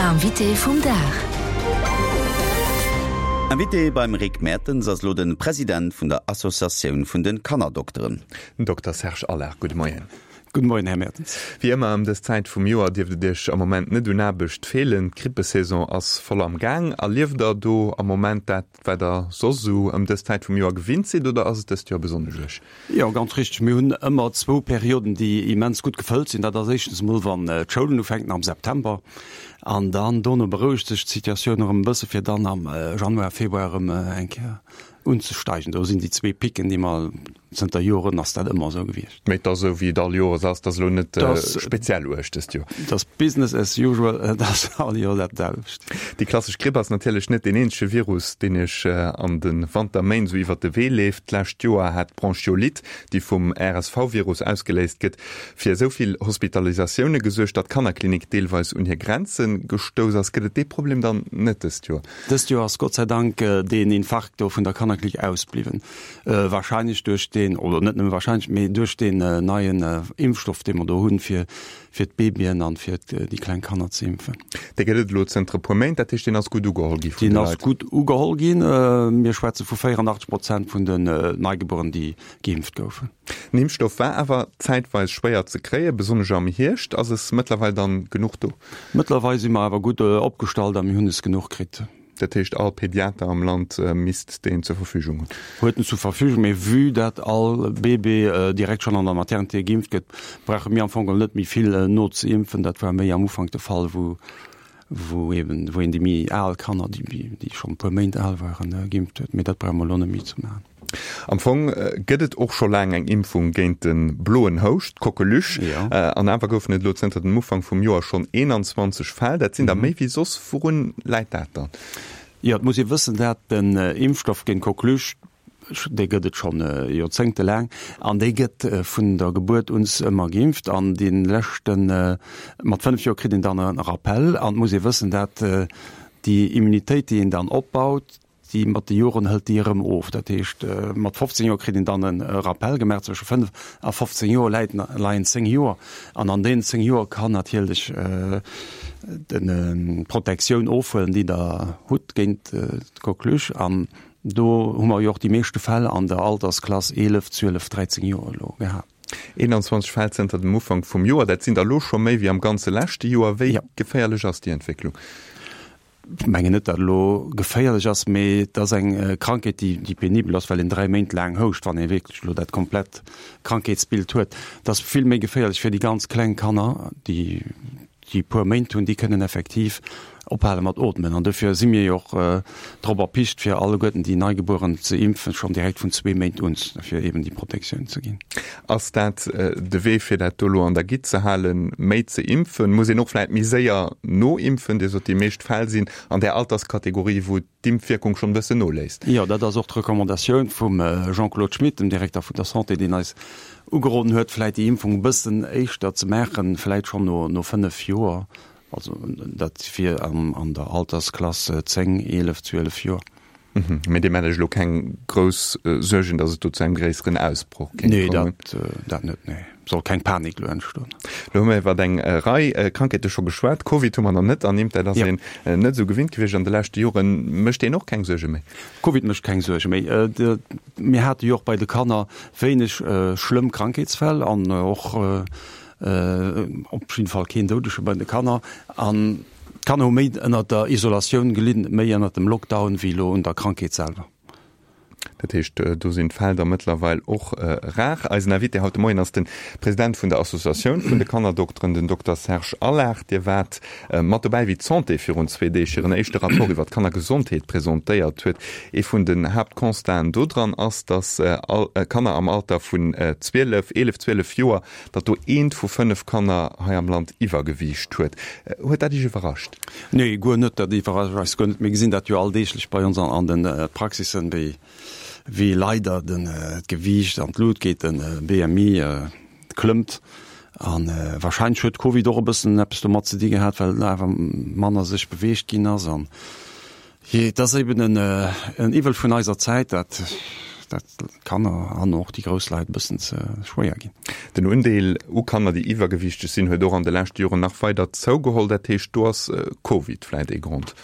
Invité vum Dag. Invité beim Rick Mertens ass elo de President vun der Associatioun vun de Kannerdokteren. Den Dokter Serge Allard. Gudde Moien. Gudde Moien, Här Mertens. Wéi ëmmer ëm dës Zäit vum Joer dierft et Iech am Moment net un Aarbecht feelen. D'Grippesaison ass voll am Gaang. Erlieft Der do am Moment dat, wat Der soss esou ëm dës Zäit vum Joer gewinnt sidd oder ass et dëst Joer besonnesch uerg? Jo, ganz richteg. Mir hunn ëmmer zwou Perioden, déi immens gutt gefëllt sinn. Dat ass éischtens emol, wann d'Schoulen ufänken am September an dann dono berouegt sech d'Situatioun erëm e bësse fir dann am Januar, Februar erëm eng Kéier unzesteigen. Do sinn déi zwee Picken, déi mer Zënter Joren ass dat ëmmer esou gewiescht. Mee et ass esou, wéi et all Joers ass, et ass elo net speziell uerg dëst Joer. Et ass Business as usual, et ass all Joer dat selwecht. Déi klassesch Gripp ass natierlech net deen eenzege Virus, deen Iech an de Wanterméint esou iwwert de Wee leeft. D'lescht Joer hat d'Bronchiolite, déi vum RSV-Virus ausgeléist gëtt, fir esou vill Hospitalisatioune gesuergt, datt d'Kannerklinik deelweis un hir Grenze gestouss ass. Gëtt et dee Problem dann net dëst Joer? Dëst Joer ass Gott sei Dank deen Infarkt do vun der Kannerklinik ausbliwwen. Wahrscheinlech duerch deen, oder net nëmme wahrscheinlech, mee duerch deen neien Impfstoff, dee mer do hunn, fir fir d'Babyen an fir déi kleng Kanner ze impfen. Dee gëtt et elo zënter e puer Méint, dat heescht, deen ass gutt ugeholl gi vun de Deen ass Leit? gutt ugeholl ginn. Mir schwätze vu 84 Prozent vun den Neigebueren, déi geimpft goufen. Den Impfstoff war awer zäitweis schwéier ze kréien, besonnesch am Hierscht. Ass es mëttlerweil dann genuch do? Mëttlerweil si mer awer gutt opgestallt a mir hunn es genuch kritt. Dat heescht, all Pediater am Land misst deen zur Verfügung hunn? Huet en zur Verfügung, mee vue dat all Bébé direkt schonn an der Maternité geimpft gëtt, brauche mir am Fong geholl net méi vill nozeimpfen. Dat war méi am Ufank de Fall, wou wou eben wou een déi méi al Kanner, déi déi schonn e puer Méint al waren, geimpft huet. Mee dat brauche mer elo net méi ze maachen. Am Fong gëtt et och scho laang eng Impfung géint de bloen Houscht, d'Coqueluche. An awer goufen et elo zënter dem Ufank vum Joer schonn 21 Fäll. Dat sinn der méi wéi soss. Wourun läit dat dann? Jo, et muss ee wëssen, dat den Impfstoff géint d'Coqueluche, dee gëtt et schonn joerzéngtelaang an dee gëtt vun der Gebuert un ëmmer geimpft. An dee leschten, mat 5 Joer kritt een dann e Rappel. An et muss ee wëssen, dat déi Immunitéit, déi een dann opbaut, Déi mat de Joren hëlt déi erëm of. Dat heescht, mat 15 Joer kritt een dann e Rappel gemaach. Zwësche 5 a 15 Joer läit, leien 10 Joer. An an deenen 10 Joer kann natierlech d'Protektioun ofhuelen, déi Der hutt géint d'Coqueluche. An do hu mer jo och déi meeschte Fäll an der Altersklass 11, 12, 13 Joer elo gehat. 21 Fäll zënter dem Ufank vum Joer, dat sinn der elo scho méi wéi am ganze leschte Joer. Wéi geféierlech ass déi Entwécklung? Ech mengen net, datt et elo geféierlech ass, mee et ass eng Krankheet, déi, déi penibel ass, well een 3 Méint laang houscht, wann ee wierklech elo dat komplett Krankheetsbild huet. Et ass vill méi geféierlech fir déi ganz kleng Kanner, déi, déi e puer Méint hunn, déi kënnen effektiv ophale mat ootmen. An dofir si mir jo och drop erpicht, fir alleguerten déi Neigebueren ze impfen, schonn direkt vun zwee Méint un, fir eeben déi Protektioun ze ginn. Ass dat de Wee fir dat do elo an der Gitt ze halen, méi ze impfen? Muss een och vläit méi séier noimpfen? Dir sot, déi meescht Fäll sinn an där Alterskategorie, wou d'Impfwierkung schonn e bëssen noléisst. Jo, dat ass och d'Recommandatioun vum Jean-Claude Schmit, dem Direkter vun der Santé, deen eis ugeroden huet, vläit déi Impfung e bëssen éischter ze maachen, vläit schonn no 5 Joer, also dat wier an der Altersklass 10, 11, 12 Joer. Mee Dir maacht Iech elo keng grouss Suergen, datt et do zu engem gréisseren Ausbroch kéint kommen? Nee, dat, dat net, nee. Soll keng Panik elo entstoen. Elo hu mir iwwer eng Rei Krankheete scho geschwat. Covid hu mer nach net ernimmt. Dat ass een net esou gewinnt gewiescht an de leschte Joren. Mécht deen och keng Suerge méi? Covid mécht keng Suerge méi. Mir hate jo och bei de Kanner wéineg schlëmm Krankheetsfäll an och op jidde Fall keen Doudege bei de Kanner. An D'Kanner hu méi ënnert der Isolatioun gelidden, méi ënnert dem Lockdown wéi elo un der Krankheet selwer. Dat heescht, do sinn d'Fäll da mëttlerweil och rar. Eisen Invité haut de Moien ass de President vun der Associatioun vun de Kannerdokteren, den Dokter Serge Allard. Dir waart mat dobäi, wéi d'Santé virun zwee Deeg hiren éischte Rapport iwwer d'Kannergesondheet presentéiert huet. Ee vun den Haaptconstaten dodran ass, datt all Kanner am Alter vun 12, 11, 12 Joer datt do eent vu 5 Kanner hei am Land Iwwergewiicht huet. Huet dat Iech iwwerrascht? Nee, guer net. Dat iwwerrascht eis guer net. Mir gesinn dat jo alldeeglech bei ons an de Praxissen, wéi, wéi leider den, d'Gewiicht an d'Lut geet, den BMI klëmmt. A wahrscheinlech huet Covid och e bëssen eppes domat ze di gehat, well awer manner sech beweegt ginn ass. An jee, et ass eben en, en Iwwel vun eiser Zäit, dat. dat d'Kanner an och déi grouss Leit e bëssen ze schwéier ginn. Den Undeel u Kanner, déi iwwergewiichteg sinn, huet och an de leschte Joren nach weider zougeholl. Dat heescht, do ass Covid vläit ee Grond?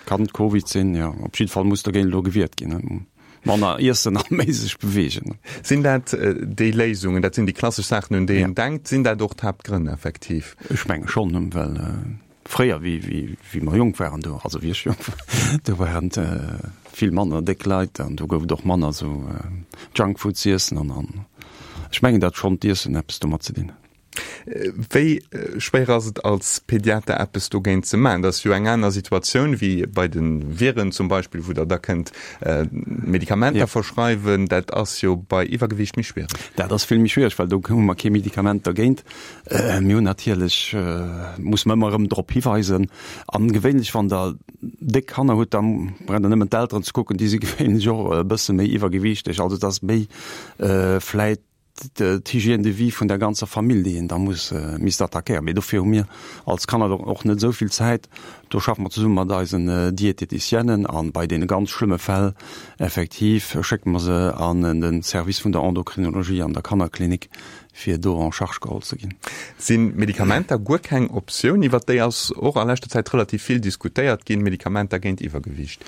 Kann Covid sinn, jo. Op jidde Fall muss dogéint elo gewiert ginn. Manner iessen a méi sech beweegen. Sinn dat déi Léisungen, dat sinn déi klassesch Saachen, un déi een denkt, sinn dat och d'Haaptgrënn effektiv? Ech menge schonn, well fréier, wéi mer jonk waren, do, also wéi ech jonk war, do waren et vill manner déck Leit an do gouf et och manner esou Junkfood z'iessen an ech mengen, datt schonn d'Iessen eppes domat ze dinn huet. Wéi schwéier ass et als Pediater eppes dogéint ze maachen? Dat ass jo eng aner Situatioun wéi bei de Viren zum Beispill, wou Der da kënnt Medikamenter verschreiwen. Dat ass jo bei Iwwergewiicht méi schwiereg. Dat ass vill méi schwiereg, well do hu mer kee Medikament dergéint. Mir hunn natierlech, muss mer ëmmer erëm drop hiweisen. An gewéinlech, wann Der déck Kanner hutt, da braucht Der nëmmen d'Elteren ze kucken, déi si gewéinlech och e bësse méi iwwergewiichteg. Also et ass méi vläit d'Hygiène de vie vun der ganzer Famill, déi een da muss misst attackéieren. Mee dofir hu mir als Kanner och net esou vill Zäit. Do schaffe mer zesumme mat eisen Diététicienen a bei deene ganz schlëmme Fäll effektiv schécke mer se an de Service vun der Endocrinologie an der Kannerklinik, fir do en charge geholl ze ginn. Sinn Medikamenter guer keng Optioun? Iwwer déi ass och a leschter Zäit relativ vill diskutéiert ginn, Medikamenter géint Iwwergewiicht.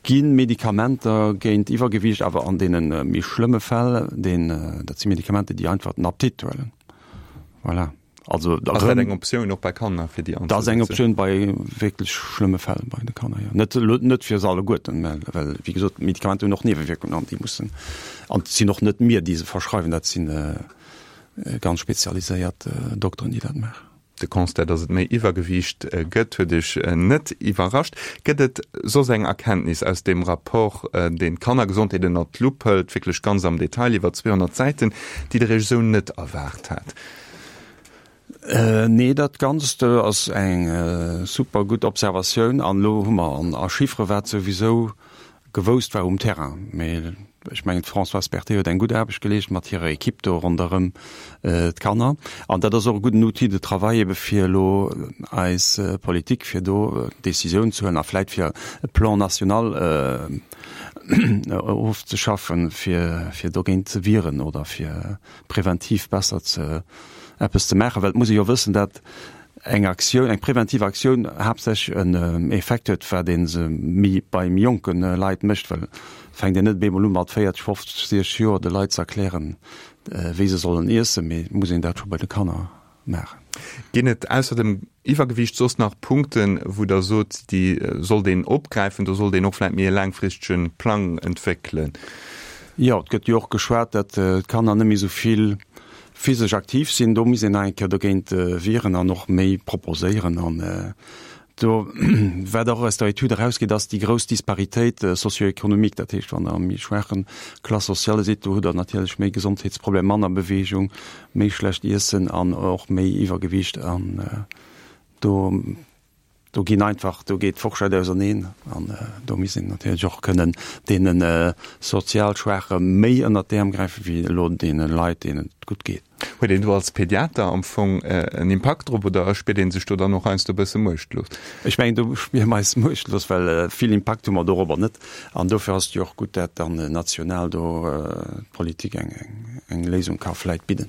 Gi Medikamenter géint Iwwergewiicht, awer an deene méi schlëmme Fäll, deen, dat si Medikamenter, déi einfach den Appetit huelen. Voilà. Also da Ass dat eng Optioun och bei Kanner, fir déi anzesetzen? Dat ass eng Optioun bei wierklech schlëmme Fäll bei de Kanner, jo. Net elo, net fir se alleguerten, mä well, wéi gesot, d'Medikamenter hunn och Niewewierkungen an déi mussen, an et sinn och net mir, déi se verschreiwen, dat si ganz spezialiséiert Dokteren, déi dat maachen. De Constat, datt et méi Iwwergewiicht gëtt, huet Iech net iwwerrascht. Gëtt et soss eng Erkenntnis aus deem Rapport, deen d'Kannergesondheet ënnert d'Lupp hëlt, wierklech ganz am Detail iwwer 200 Säiten, déi Der Iech esou net erwaart hat? Nee, dat Ganzt ass eng super gutt Observatioun. An elo hu mer a Chiffere wat souwisou gewousst war um Terrain. Mee ech mengen, d'Françoise Berthet huet eng gutt Aarbecht geleescht mat hirer Equipe do ronderëm d'Kanner. An dat ass och e gudden Outil de travail ebe fir elo eis Politik, fir do Décisioun ze huelen a vläit fir e Plan national ofzeschaffen, fir, fir dogéint ze wieren oder fir preventiv besser ze eppes ze maachen. Well et muss ee jo wëssen, dat eng Aktioun, eng preventiv Aktioun haaptsächlech en Effekt huet, wat ee se méi bei méi jonke Leit mécht, well et fänkt een net op eemol u mat 40, 50, 60 Joer de Leit ze erklären, wéi se sollen iessen, mee et muss een dat scho bei de Kanner maachen. Ginn et ausser dem Iwwergewiicht soss nach Punkten, wou Der sot, déi sollt een opgräifen, do sollt een och vläicht méi e laangfristege Plang entwéckelen? Jo, et gëtt jo och geschwat, datt d'Kanner net méi esou vill physesch aktiv sinn, do misst een nach eng Kéier dogéint wieren an och méi proposéieren. An do, wat och aus der Etüd erausgeet, ass déi grouss Disparitéit socio-économique. Dat heescht, wann Der a méi schwaache Classe sociale sidd, do hutt Der natierlech méi Gesondheetsproblemer, manner Beweegung, méi schlecht Iessen an och méi Iwwergewiicht. An do Do ginn einfach, do geet d'Forschett auserneen an do misst een natierlech och kënnen deene sozial Schwaache méi ënnert d'Äerm gräifen, wéi elo deene Leit, deenen et gutt geet. Huet een do als Pediater am Fong en Impakt drop oder spiert ee sech do dann och heiansdo e bësse muechtlos? Ech mengen, do spiere mer eis muechtlos, well vill Impakt hu mer dorobber net. An dofir ass et jo och gutt, dat dann national do d'Politik eng Léisung ka vläit bidden.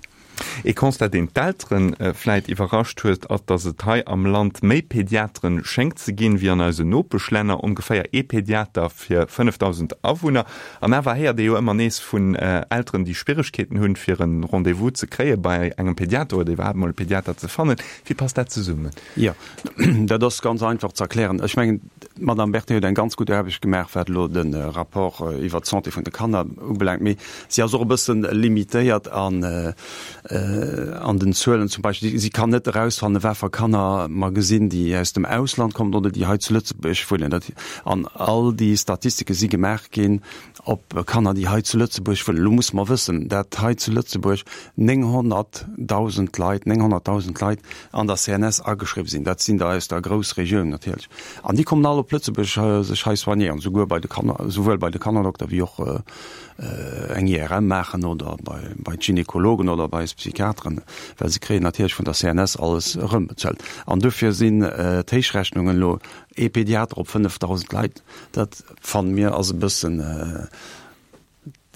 Ee Constat, deen d'Eltere vläit iwwerrascht huet, ass, datt et hei am Land méi Pediatere schéngt ze ginn, wéi an eisen Nopeschlänner, ongeféier ee Pediater fir 5.000 Awunner. An awer héiert ee jo ëmmer nees vun Elteren, déi Schwieregkeeten hunn, fir e Rendez-vous ze kréie bei engem Pediater oder iwwerhaapt emol e Pediater ze fannen. Wéi passt dat zesummen? Jo, dat ass ganz einfach ze erklären. Ech mengen, d'Madame Berthet huet eng ganz gutt Aarbecht gemaach, wat elo de Rapport iwwert d'Santé vun de Kanner ubelaangt. Mee si ass och e bësse limitéiert an den Zuelen. Zum Beispill, si kann net erausfannen, wat fir Kanner mer gesinn, déi aus dem Ausland kommen oder déi hei zu Lëtzebuerg wunnen. An all déi Statistike si gemaach ginn op Kanner, déi hei zu Lëtzebuerg wunnen. Elo musse mer wëssen, dat hei zu Lëtzebuerg 900.000 Leit, 900.000 Leit an der CNS ageschriwwen sinn. Dat sinn der aus der Groussregioun natierlech. An déi kommen all op Lëtzebuerg sech hei soignéieren, souguer bei de Kanner, souwuel bei de Kannerdokter wéi och eng IRM maachen oder bei, bei d'Gynekologen oder bei eis Psychiateren, well se kréien natierlech vun der CNS alles erëmbezuelt. An dofir sinn d'Héichrechnungen elo ee Pediater op 5.000 Leit, dat fanne mir ass e bëssen.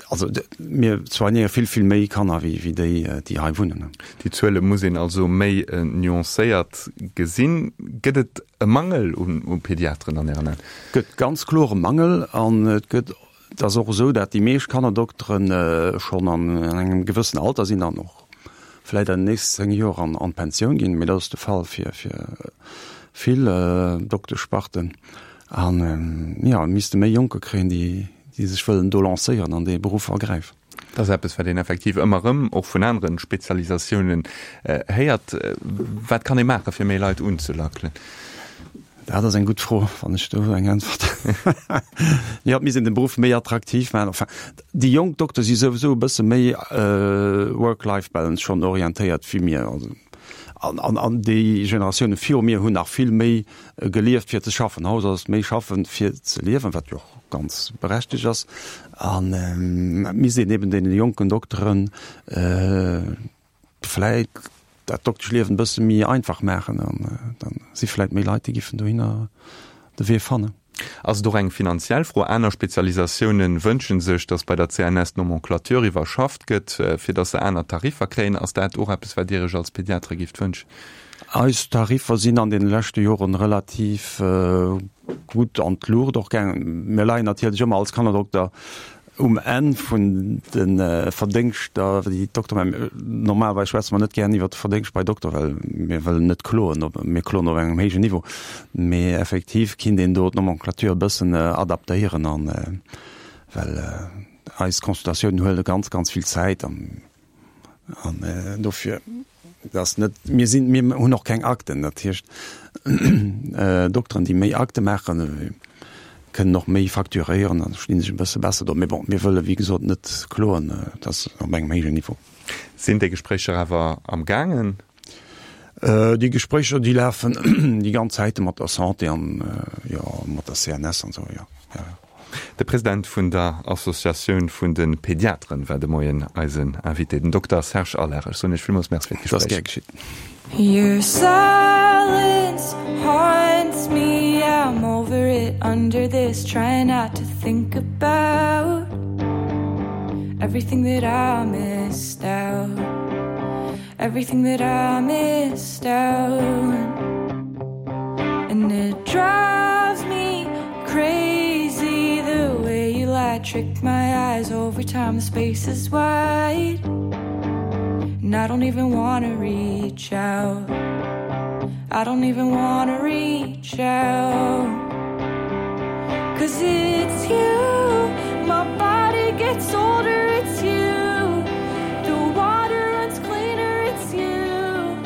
Also mir soignéiere vill, vill méi Kanner wéi wéi déi, déi hei wunnen. Déi Zuele muss een also méi nuancéiert gesinn. Gëtt et e Mangel u Pediateren an Ären Aen? Et gëtt ganz kloer e Mangel an et gëtt, et ass och esou, dat déi meescht Kannerdoktere schonn an engem gewëssen Alter sinn an och vläicht an den nächsten 10 Joer an d'Pensioun ginn. Mee dat ass de Fall fir vill Dokteschsparten. An jo, et misste méi Jonker kréien, déi déi sech wëllen do lancéieren an dee Beruff ergräifen. Dat ass eppes, wat een effektiv ëmmer erëm och vun anere Spezialisatiounen héiert. Wat kann ee maachen, fir méi Leit unzelackelen? Dat ass eng gutt Fro, wann ech do eng Äntwert. Jo, et misst een de Beruff méi attraktiv maachen. Enfin, déi jonk Dokter si souwisou e bësse méi Work-Life-Balance schonn orientéiert wéi mir. Also, an, an, an déi Generatioune viru mir hunn nach vill méi gelieft fir ze schaffen. Haut ass et méi schaffen fir ze liewen, wat jo och ganz berechtegt ass. An et misst een eben deene jonken Dokteren vläit dat Dokteschliewen e bësse méi einfach maachen an da si vläit méi Leit, déi giffen dohinner de Wee fannen. Ass et och eng finanziell Fro? Aner Spezialisatioune wënsche sech, datt bei der CNS d'Nomenclature iwwerschafft gëtt, fir datt se aner Tariffer kréien. Ass dat och eppes, wat Dir Iech als Pediatre gifft wënschen? Eis Tariffer sinn an deene leschte Joren relativ gutt an d'Luucht och gaangen. Mir leien natierlech ëmmer als Kannerdokter um Enn vun de Verdéngschter, déi d'Dokter maachen. Normalerweis schwätze mer net gären iwwert de Verdéngscht bei Dokter, well mir wëllen net kloen, mir kloen op engem héijen Niveau. Mee effektiv kinnt een do d'Nomenclature e bëssen adaptéieren an, well eis Consultatiounen huele ganz, ganz vill Zäit an An dofir, dat ass net, mir sinn, mir hunn och keng Akten, dat heescht Dokteren, déi méi Akte maachen, kënnen och méi facturéieren an stinn sech e bësse besser do. Mee bon, mir wëlle wéi gesot net kloen, dat ass op engem héijen Niveau. Sinn déi Gespréicher awer am gaangen? Déi Gespréicher, déi lafen déi ganz Zäite mat der Santé an, jo, mat der CNS an esou, jo, jo, jo. De President vun der Associatioun vun de Pediateren war de Moien eisen Invité, den Dokter Serge Allard. Ech soen Iech villmools Merci fir d'Gespréich. Dat ass gär geschitt. Your silence haunts me, I'm over it, under this, trying not to think about everything that I missed out. Everything that I missed out And it drives me crazy The way you lie, trick my eyes Over time the space is wide And I don't even wanna reach out I don't even wanna reach out Cause it's you My body gets older, it's you The water runs cleaner, it's you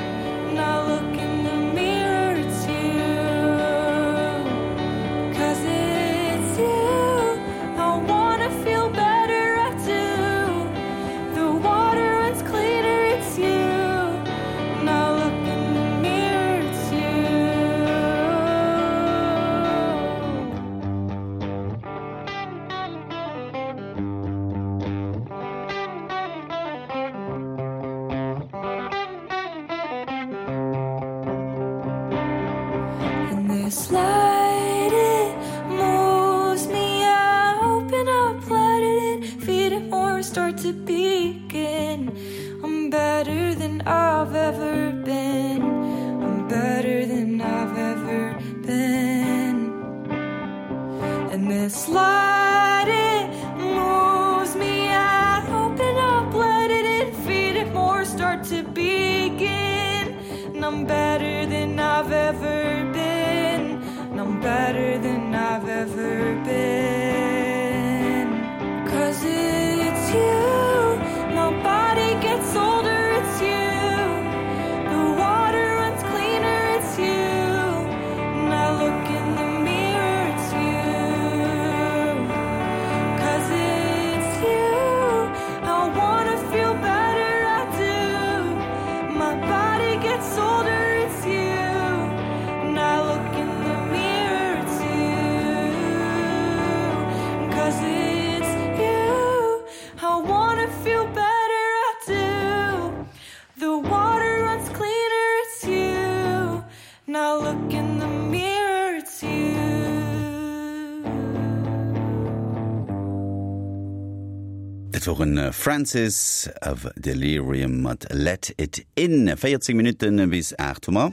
And I look in the mirror, it's you Cause it's you I wanna feel better, I do The water runs cleaner, it's you And I look in the mirror, it's you And this light it moves me I open up, let it in, feed it more, start to begin I'm better than I've ever been I'm better than I've ever been And this light it moves me I open up, let it in, feed it more, start to begin And I'm better than I've ever been And I'm better than I've ever been Cause it's you My body gets older, it's you The water runs cleaner, it's you And I look in the mirror, it's you Cause it's you I wanna feel better, I do My body gets older, it's you And I look in the mirror, it's you Cause it's you I wanna feel better, I do The water runs cleaner, it's you Now look in the mirror, it's you. Dat woren Francis of Delirium mat Let It In. 14 Minutten bis 8 hu mer.